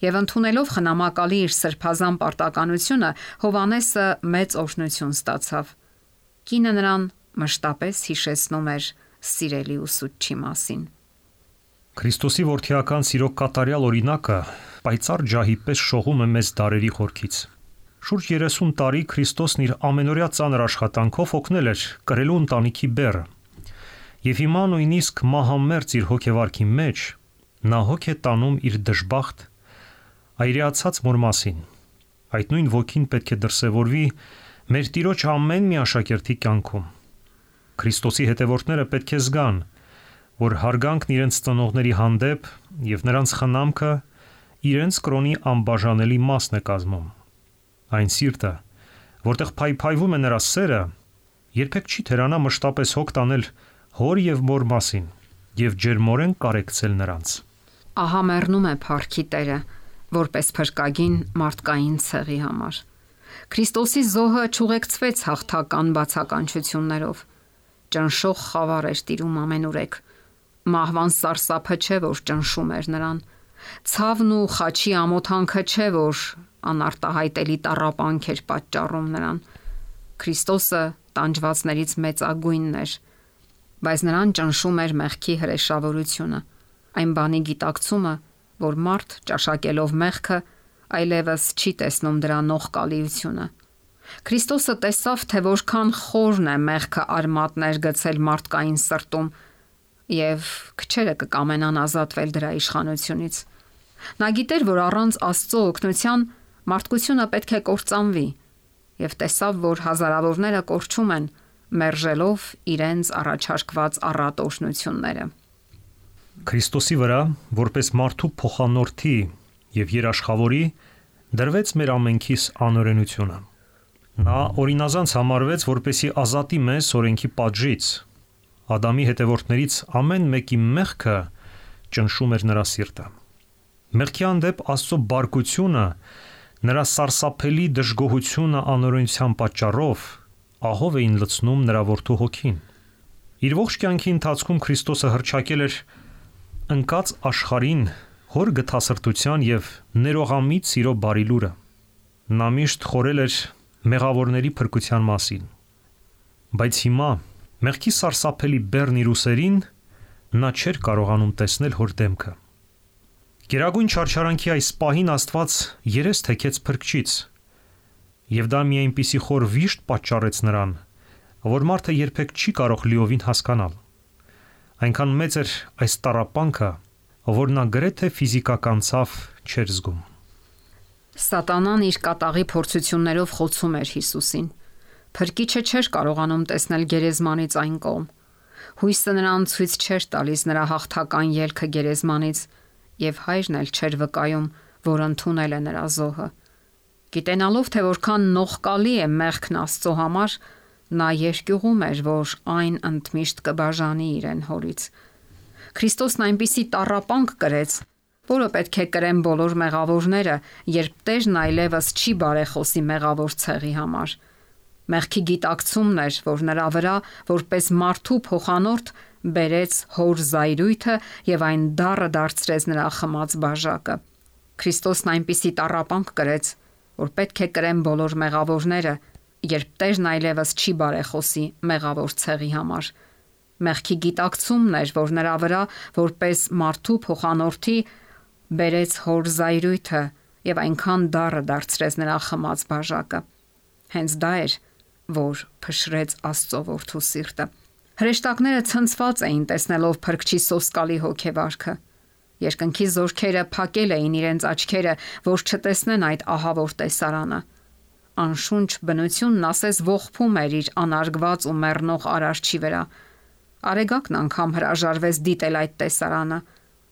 Եվ ընդունելով խնամակալի իր սրբազան պարտականությունը, Հովանեսը մեծ օրհնություն ստացավ։ Կինը նրան մշտապես հիշեցնում էր սիրելի ուսուցչի մասին։ Քրիստոսի որդիական սիրո կատարյալ օրինակը պայծառ ջահի պես շողում է մեզ դարերի խորքից։ Շուրջ 30 տարի Քրիստոսն իր ամենօրյա ծանր աշխատանքով օգնել էր կրելու ընտանիքի բեռը։ Եվ հիմա նույնիսկ մահամերձ իր հոգեվարքի մեջ նա հոգ է տանում իր դժբախտ այրացած մոր մասին։ Այդ նույն ոգին պետք է դրսևորվի մեր Տիրոջ ամեն մի աշակերտի կյանքում։ Քրիստոսի հետևորդները պետք է զգան, որ հարգանքն իրենց ծնողների հանդեպ եւ նրանց խնամքը իրենց կրոնի անբաժանելի մասն է կազմում։ Այն սիրտը, որտեղ փայփայվում է նրա սերը, երբեք չի թերանա մշտապես հոգ տանել հոր եւ մոր մասին եւ ջերմորեն կարեկցել նրանց։ Ահա մեռնում է Փառքի Տերը, որպես փրկագին մարդկային ցեղի համար։ Քրիստոսի զոհը ճուղեկցվեց հաղթական բացականչություններով։ Ճնշող խավար էր տիրում ամենուրեք։ Մահվան սարսափը չէ, որ ճնշում էր նրան։ Ցավն ու խաչի ամոթանքը չէ, որ անարտահայտելի տառապանք էր պատճառում նրան։ Քրիստոսը տանջվածներից մեծագույնն էր, բայց նրան ճնշում էր մեղքի հրեշավորությունը, այն բանի գիտակցումը, որ մարդ ճաշակելով մեղքը այլևս չի տեսնում դրա նողկալիությունը։ Քրիստոսը տեսավ, թե որքան խորն է մեղքը արմատներ գցել մարդկային սրտում, եւ քչերը կկամենան ազատվել դրա իշխանությունից։ Նա գիտեր, որ առանց Աստծո օգնության մարդկությունը պետք է կործանվի, եւ տեսավ, որ հազարավորները կորչում են, մերժելով իրենց առաջարկված առատ օրհնությունները։ Քրիստոսի վրա, որպես մարդու փոխանորդի եւ երաշխավորի, դրվեց մեր ամենքիս անօրենությունը։ Նա օրինազանց համարվեց, որպեսի ազատի մեզ օրենքի պատժից։ Ադամի հետևորդներից ամեն մեկի մեղքը ճնշում էր նրա սիրտը։ Մեղքի հանդեպ Աստծո բարկությունը, նրա սարսափելի դժգոհությունը անօրենության պատճառով ահով էին լցնում նրա որդու հոգին։ Իր ողջ կյանքի ընթացքում Քրիստոսը հռչակել էր ընկած աշխարհին հոր գթասրտության եւ ներողամիտ սիրո բարի լուրը։ Նա միշտ խորել էր մեղավորների փրկության մասին։ Բայց հիմա մեղքի սարսափելի բեռն իր ուսերին նա չէր կարողանում տեսնել հոր դեմքը։ Գերագույն չարչարանքի այս պահին Աստված երես թեքեց Փրկչից, եւ դա մի այնպիսի խոր վիշտ պատճառեց նրան, որ մարդը երբեք չի կարող լիովին հասկանալ։ Այնքան մեծ էր այս տառապանքը, որ նա գրեթե ֆիզիկական ցավ չէր զգում։ Սատանան իր կատաղի փորձություններով խոցում էր Հիսուսին։ Փրկիչը չէր կարողանում տեսնել գերեզմանից այն կողմ։ Հույսը նրան ցույց չէր տալիս նրա հաղթական ելքը գերեզմանից, եւ հայրն էլ չէր վկայում, որ ընդունել է նրա զոհը։ Գիտենալով, թե որքան նողկալի է մեղքն Աստծո համար, նա երկյուղում էր, որ այն ընդմիշտ կբաժանի իրեն հորից։ Քրիստոսն այնպիսի տառապանք կրեց, որը պետք է կրեն բոլոր մեղավորները, երբ Տերն այլևս չի բարեխոսի մեղավոր ցեղի համար։ Մեղքի գիտակցումն էր, որ նրա վրա, որպես մարդու փոխանորդ, բերեց հոր զայրույթը եւ այն դառը դարձրեց նրա խմած բաժակը։ Քրիստոսն այնպիսի տառապանք կրեց, որ պետք է կրեն բոլոր մեղավորները, երբ Տերն այլևս չի բարեխոսի մեղավոր ցեղի համար։ Մեղքի գիտակցումն էր, որ նրա վրա, որպես մարդու փոխանորդի, բերեց հոր զայրույթը եւ այնքան դառը դարձրեց նրա խմած բաժակը։ Հենց դա էր, որ փշրեց Աստծո որդու սիրտը։ Հրեշտակները ցնցված էին տեսնելով Փրկչի սոսկալի հոգեվարքը։ Երկնքի զորքերը փակել էին իրենց աչքերը, որ չտեսնեն այդ ահավոր տեսարանը։ Անշունչ բնությունն ասես ողբում էր իր անարգված ու մեռնող արարչի վրա։ Արեգակն անգամ հրաժարվեց դիտել այդ տեսարանը։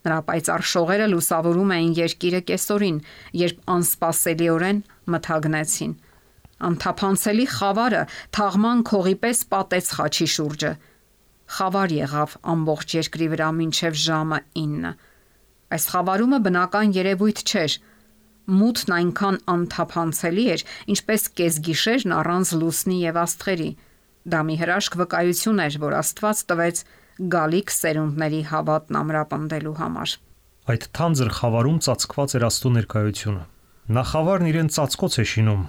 Նրա պայծառ շողերը լուսավորում էին երկիրը կեսօրին, երբ անսպասելիորեն մթագնեցին։ Անթափանցելի խավարը թաղման քողի պես պատեց խաչի շուրջը։ Խավար եղավ ամբողջ երկրի վրա մինչև ժամը 9։ Այս խավարումը բնական երևույթ չէր։ Մութն այնքան անթափանցելի էր, ինչպես կեսգիշերն առանց լուսնի եւ աստղերի։ Դա մի հրաշք վկայություն էր, որ Աստված տվեց գալիք սերունդների հավատն ամրապնդելու համար։ Այդ թանձր խավարում ծածկված էր Աստծո ներկայությունը։ Նա խավարն իրեն ծածկոց է շինում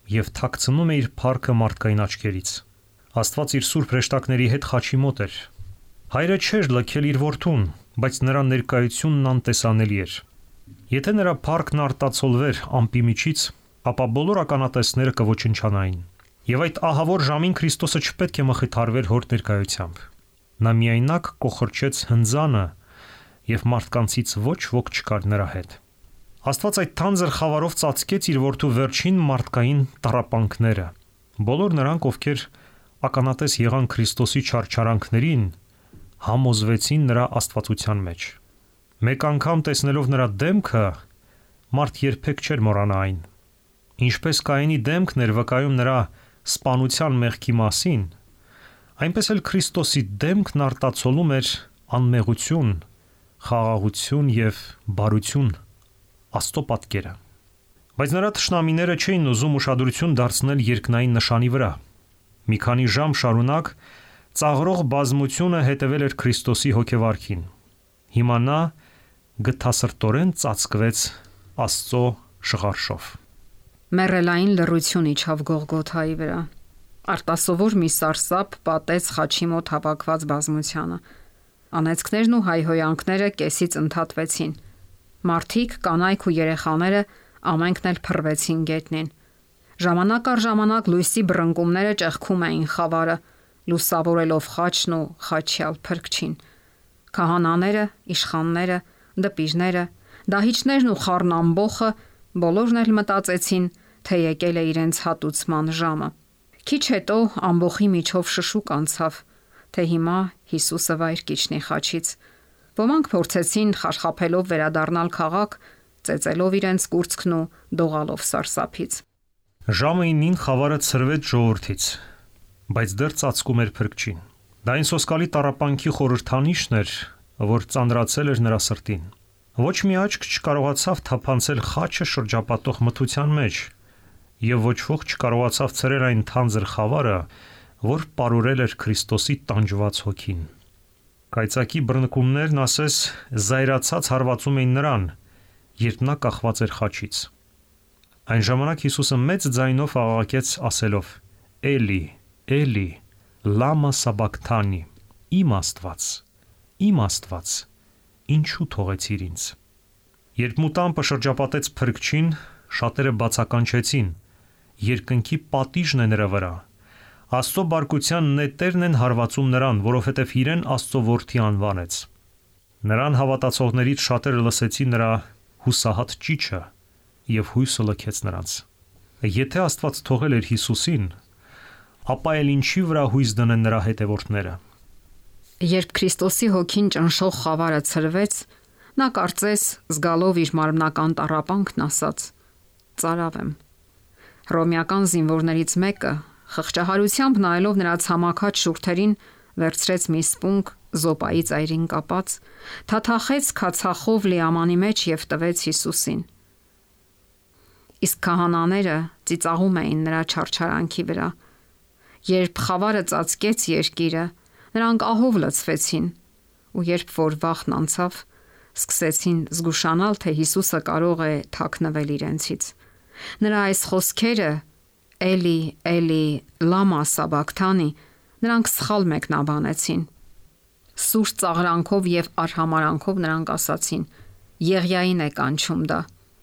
եւ թաքցնում է իր փառքը մարդկային աչքերից։ Աստված իր սուրբ հրեշտակների հետ խաչի մոտ էր։ Հայրը չէր լքել իր որդուն, բայց նրա ներկայությունն անտեսանելի էր։ Եթե նրա փառքն արտացոլվեր ամպի միջից, ապա բոլոր ականատեսները կոչնչանային։ Եվ այդ ահավոր ժամին Քրիստոսը չպետք է մխիթարվեր հոր ներկայությամբ։ Նա միայնակ կոխորչեց հնձանը, եւ մարդկանցից ոչ ոք չկար նրա հետ։ Աստված այդ թանձր խավարով ծածկեց իր որդու վերջին մարդկային տառապանքները։ Բոլոր նրանք, ովքեր ականատես եղան Քրիստոսի չարչարանքներին, համոզվեցին նրա աստվածության մեջ։ Մեկ անգամ տեսնելով նրա դեմքը, մարդ երբեք չէր մոռանա այն։ Ինչպես Կայենի դեմքն էր վկայում նրա սպանության մեղքի մասին, այնպես էլ Քրիստոսի դեմքն արտացոլում էր անմեղություն, խաղաղություն եւ բարություն, Աստծո պատկերը։ Բայց նրա թշնամիները չէին ուզում ուշադրություն դարձնել երկնային նշանի վրա։ Մի քանի ժամ շարունակ ծաղրող բազմությունը հետևել էր Քրիստոսի հոգեվարքին։ Հիմա նա գթասրտորեն ծածկվեց Աստծո շղարշով։ Մեռելային լռություն իջավ Գողգոթայի վրա։ Արտասովոր մի սարսափ պատեց խաչի մոտ հավաքված բազմությանը։ Անեծքներն ու հայհոյանքները կեսից ընդհատվեցին։ Մարդիկ, կանայք ու երեխաները ամենքն էլ փռվեցին գետնին։ Ժամանակ առ ժամանակ լույսի բռնկումները ճեղքում էին խավարը, լուսավորելով խաչն ու խաչյալ փրկչին։ Քահանաները, իշխանները, դպիրները, դահիճներն ու խառնամբոխը բոլորն էլ մտածեցին, թե եկել է իրենց հատուցման ժամը։ Քիչ հետո ամբոխի միջով շշուկ անցավ, թե հիմա Հիսուսը վայր կիջնի խաչից։ Ոմանք փորձեցին խարխափելով վերադառնալ քաղաք, ծեծելով իրենց կուրծքն ու դողալով սարսափից։ Ժամը 9-ին խավարը ցրվեց ժողովրդից, բայց դեռ ծածկում էր փրկչին։ Դա այն սոսկալի տառապանքի խորհրդանիշն էր, որ ծանրացել էր նրա սրտին։ Ոչ մի աչք չկարողացավ թափանցել խաչը շրջապատող մթության մեջ, եւ ոչ ոք չկարողացավ ցրել այն թանձր խավարը, որ պարուրել էր Քրիստոսի տանջված հոգին։ Կայծակի բռնկումներն ասես զայրացած հարվածում էին նրան, երբ նա կախված էր խաչից։ Այն ժամանակ Հիսուսը մեծ ձայնով աղաղակեց ասելով. «Էլի, Էլի, լամա սաբակթանի», իմ Աստված, ինչու թողեցիր ինձ։ Երբ մուտամպը շրջապատեց փրկչին, շատերը բացականչեցին. երկնքի պատիժն է նրա վրա։ Աստծո բարկության նետերն են հարվածում նրան, որովհետև իրեն Աստծո որդի անվանեց։ Նրան հավատացողներից շատերը լսեցին նրա հուսահատ ճիչը եւ հույսը լքեց նրանց։ Եթե Աստված թողել էր Հիսուսին, ապա էլ ինչի վրա հույս դնեն նրա հետևորդները։ Երբ Քրիստոսի հոգին ճնշող խավարը ցրվեց, նա կարծես զգալով իր մարմնական տառապանքն ասաց. «Ծարավ եմ»։ Հռոմեական զինվորներից մեկը, խղճահարությամբ նայելով նրա ցամաքած շուրթերին, վերցրեց մի սպունգ զոպայի ծայրին կապած, թաթախեց քացախով լիամանի մեջ եւ տվեց Հիսուսին։ Իսկ քահանաները ծիծաղում էին նրա չարչարանքի վրա։ Երբ խավարը ծածկեց երկիրը, նրանք ահով լցվեցին, ու երբ որ վախն անցավ, սկսեցին զգուշանալ, թե Հիսուսը կարող է թաքնվել իրենցից։ Նրա այս խոսքերը «Էլի, Էլի, լամա սաբակթանի» նրանք սխալ մեկնաբանեցին։ Սուր ծաղրանքով եւ արհամարանքով նրանք ասացին. «Եղիային է կանչում դա»։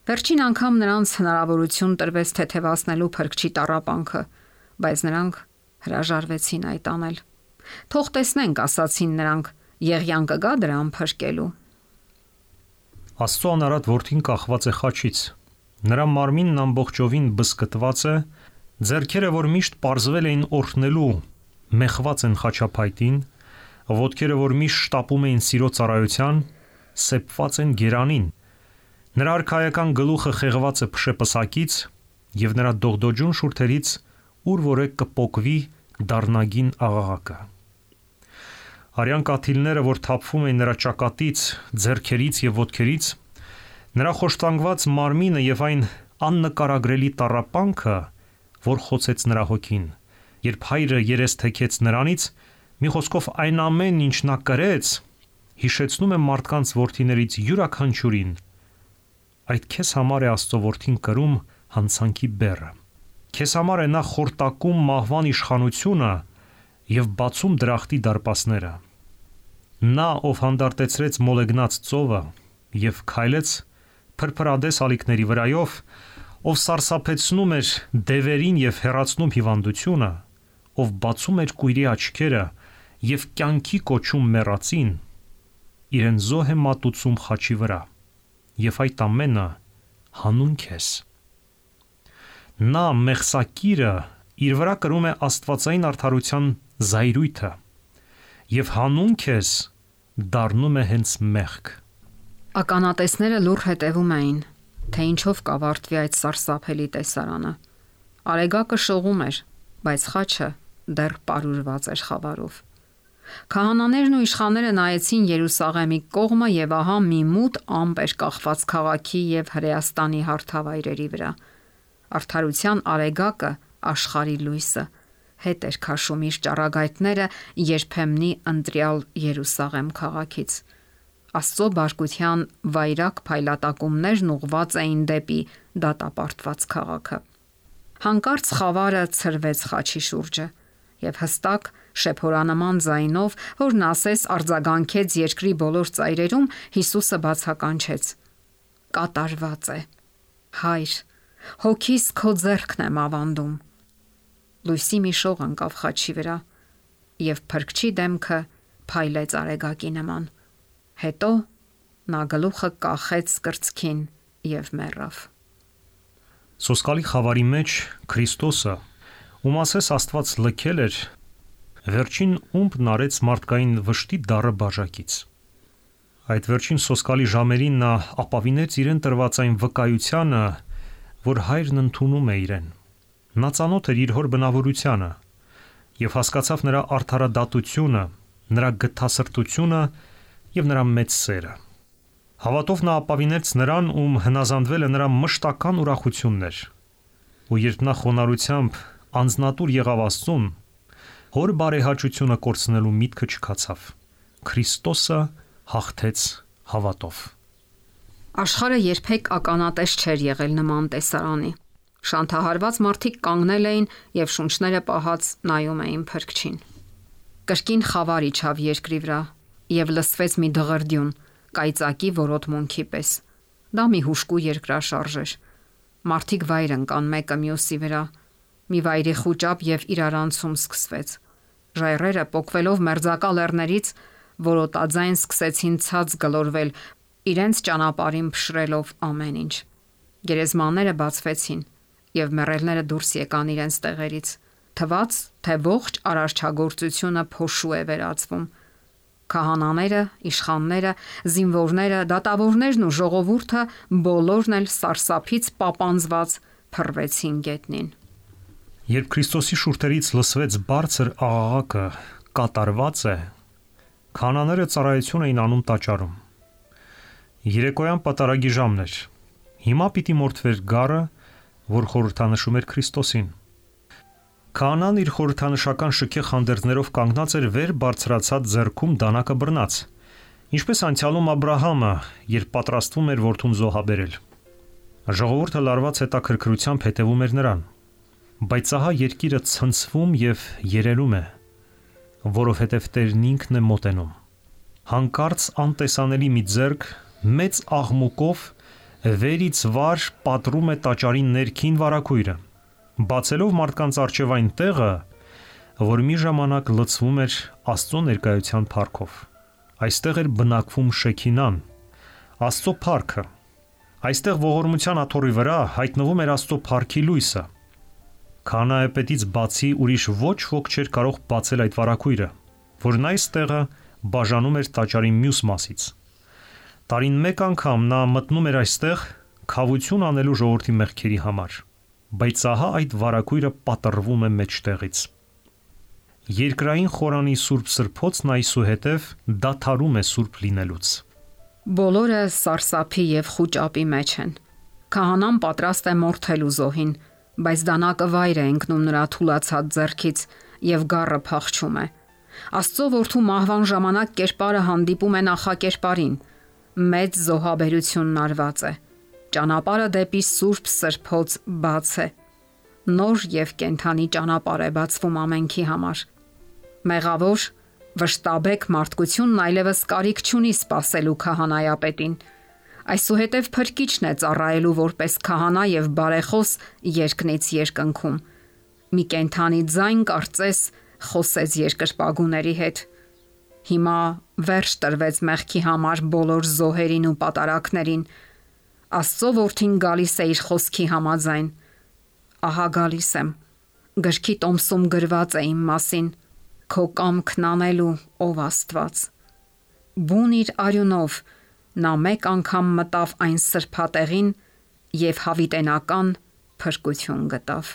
Վերջին անգամ նրանց հնարավորություն տրվեց թեթևացնելու փրկչի տառապանքը, բայց նրանք հրաժարվեցին այդ անել։ «Թող տեսնենք», ասացին նրանք, «եղիան կգա դրան փրկելու»։ Աստծո անարատ որդին կախված է խաչից։ Նրա մարմինն ամբողջովին բզկտված է, ձեռքերը, որ միշտ պարզվել էին օրհնելու, մեխված են խաչափայտին, ոտքերը, որ միշտ շտապում էին սիրո ծառայության, սեպված են գերանին։ Նրա արքայական գլուխը խեղված է փշեպսակից եւ նրա դողդոջուն շուրթերից ուր որե կպոկվի դառնագին աղաղակը։ Արյան կաթիլները, որ թափվում էին նրա ճակատից, ձեռքերից եւ ոտքերից, նրա խոշտանգված մարմինը եւ այն աննկարագրելի տառապանքը, որ խոցեց նրա հոգին, երբ հայրը երես թեքեց նրանից, մի խոսքով այն ամեն ինչ նա կրեց, հիշեցնում է մարդկանց որդիներից յուրաքանչյուրին։ Այդ քեզ համար է Աստծո որդին կրում հանցանքի բեռը։ Քեզ համար է նա խորտակում մահվան իշխանությունը եւ բացում դրախտի դարպասները։ Նա, ով հանդարտեցրեց մոլեգնած ծովը եւ քայլեց փրփրադես ալիքների վրայով, ով սարսափեցնում էր դևերին եւ հեռացնում հիվանդությունը, ով բացում էր կույրի աչքերը եւ կյանքի կոչում մեռածին, իրեն զոհ է մատուցում խաչի վրա, եւ այդ ամենը հանուն քեզ։ Նա մեղսակիրը իր վրա կրում է աստվածային արդարության զայրույթը եւ հանուն քեզ դառնում է հենց մեղք։ Ականատեսները լուռ հետևում էին, թե ինչով կավարտվի այդ սարսափելի տեսարանը։ Արեգակը շողում էր, բայց խաչը դեռ պարուրված էր խավարով։ Քահանաներն ու իշխանները նայեցին Երուսաղեմի կողմը եւ ահա մի մութ ամպ էր կախված քաղաքի եւ Հրեաստանի հարթավայրերի վրա։ Արդարության արեգակը, աշխարհի լույսը, հետ էր քաշում իր ճառագայթները երբեմնի ընտրյալ Երուսաղեմ քաղաքից։ Աստծո բարկության վայրակ փայլատակումներն ուղված էին դեպի դատապարտված քաղաքը։ Հանկարծ խավարը ցրվեց խաչի շուրջը եւ հստակ շեփորանման ձայնով, որն ասես արձագանքեց երկրի բոլոր ծայրերում, Հիսուսը բացականչեց. կատարված է։ Հայր, հոգիս քո ձեռքն եմ ավանդում։ Լույսի մի շող ընկավ խաչի վրա եւ փրկչի դեմքը փայլեց արեգակի նման։ Հետո նա գլուխը կախեց կրծքին եւ մեռավ։ Սոսկալի խավարի մեջ Քրիստոսը, ում ասես Աստված լքել էր, վերջին ումբն արեց մարդկային վշտի դառը բաժակից։ Այդ վերջին սոսկալի ժամերին նա ապավինեց իրեն տրված այն վկայությանը, որ հայրն ընդունում է իրեն։ Նա ծանոթ էր իր հոր բնավորությանը եւ հասկացավ նրա արդարադատությունը, նրա գթասրտությունը եւ նրա մեծ սերը։ Հավատով նա ապավինեց նրան, ում հնազանդվել է նրա մշտական ուրախությունն էր։ Ու երբ նա խոնարհությամբ անձնատուր եղավ Աստծուն, հոր բարեհաճությունը կորցնելու միտքը չքացավ։ Քրիստոսը հաղթեց հավատով։ Աշխարհը երբեք ականատես չէր եղել նման տեսարանի։ Շանթահարված մարդիկ կանգնել էին եւ շունչները պահած նայում էին փրկչին։ Կրկին խավար իջավ երկրի վրա եւ լսվեց մի դղրդյուն, կայծակի որոտմունքի պես։ Դա մի հուժկու երկրաշարժ էր։ Մարդիկ վայր ընկան մեկը մյուսի վրա։ Մի վայրի խուճապ եւ իրարանցում սկսվեց։ Ժայռերը պոկվելով մերձակա լեռներից որոտաձայն սկսեցին ցած գլորվել, իրենց ճանապարհին փշրելով ամեն ինչ։ Գերեզմանները բացվեցին եւ մեռելները դուրս եկան իրենց տեղերից։ Թվաց, թե ողջ արարչագործությունը փոշու է վերածվում։ Քահանաները, իշխանները, զինվորները, դատավորներն ու ժողովուրդը բոլորն էլ սարսափից պապանձված փռվեցին գետնին։ Երբ Քրիստոսի շուրթերից լսվեց բարձր աղաղակը կատարված է, քահանաները ծառայություն էին անում տաճարում։ Երեկոյան պատարագի ժամն էր։ Հիմա պիտի մորթվեր գառը, որ խորհրդանշում էր Քրիստոսին։ Քահանան իր խորհրդանշական շքեղ հանդերձներով կանգնած էր վեր բարձրացած ձեռքում դանակը բռնած, ինչպես անցյալում Աբ รา համը, երբ պատրաստվում էր որդուն զոհաբերել։ Ժողովուրդը լարված հետաքրքրությամբ հետևում էր նրան, բայց ահա երկիրը ցնցվում եւ երերում է, որովհետեւ Տերն ինքն է մոտենում։ Հանկարծ անտեսանելի մի ձեռք մեծ աղմուկով վերից վար պատռում է տաճարի ներքին վարակույրը, բացելով մարդկանց առջև այն տեղը, որ մի ժամանակ լցվում էր Աստծո ներկայության փառքով։ Այստեղ էր բնակվում Շեքինան, Աստծո փառքը։ Այստեղ ողորմության աթոռի վրա հայտնվում էր Աստծո փառքի լույսը։ Քահանայապետից բացի ուրիշ ոչ ոք չէր կարող բացել այդ վարակույրը, որն այս տեղը բաժանում էր տաճարի մյուս մասից։ Տարին մեկ անգամ նա մտնում էր այստեղ քավություն անելու ժողովրդի մեղքերի համար, բայց ահա այդ վարակույրը պատռվում է մեջտեղից։ Երկրային խորանի սուրբ սրբոցն այսուհետև դադարում է սուրբ լինելուց։ Բոլորը սարսափի եւ խուճապի մեջ են։ Քահանան պատրաստ է մորթելու զոհին, բայց դանակը վայր է ընկնում նրա թուլացած ձեռքից եւ գառը փախչում է։ Աստծո որդու մահվան ժամանակ կերպարը հանդիպում է նախակերպարին։ Մեծ զոհաբերությունն արված է։ Ճանապարհը դեպի սուրբ սրբոց բաց է։ Նոր եւ կենթանի ճանապարհ է բացվում ամենքի համար։ Մեղավոր Վշտաբեկ մարդկությունն այլևս կարիք չունի սпасելու քահանայապետին։ Այսուհետև փրկիչն է ծառայելու որպես քահանա եւ բարեխոս երկնից երկնքում։ Մի կենթանի ձայն կարծես խոսեց երկրպագուների հետ։ Հիմա վերջ տրվեց մեղքի համար բոլոր զոհերին ու պատարակներին։ Աստծո որդին գալիս է իր խոսքի համաձայն։ Ահա գալիս եմ։ Գրքի տոմսում գրված է իմ մասին։ Քո կամքն անելու, ով Աստված։ Բուն իր արյունով նա մեկ անգամ մտավ այն սրբատեղին եւ հավիտենական փրկություն գտավ։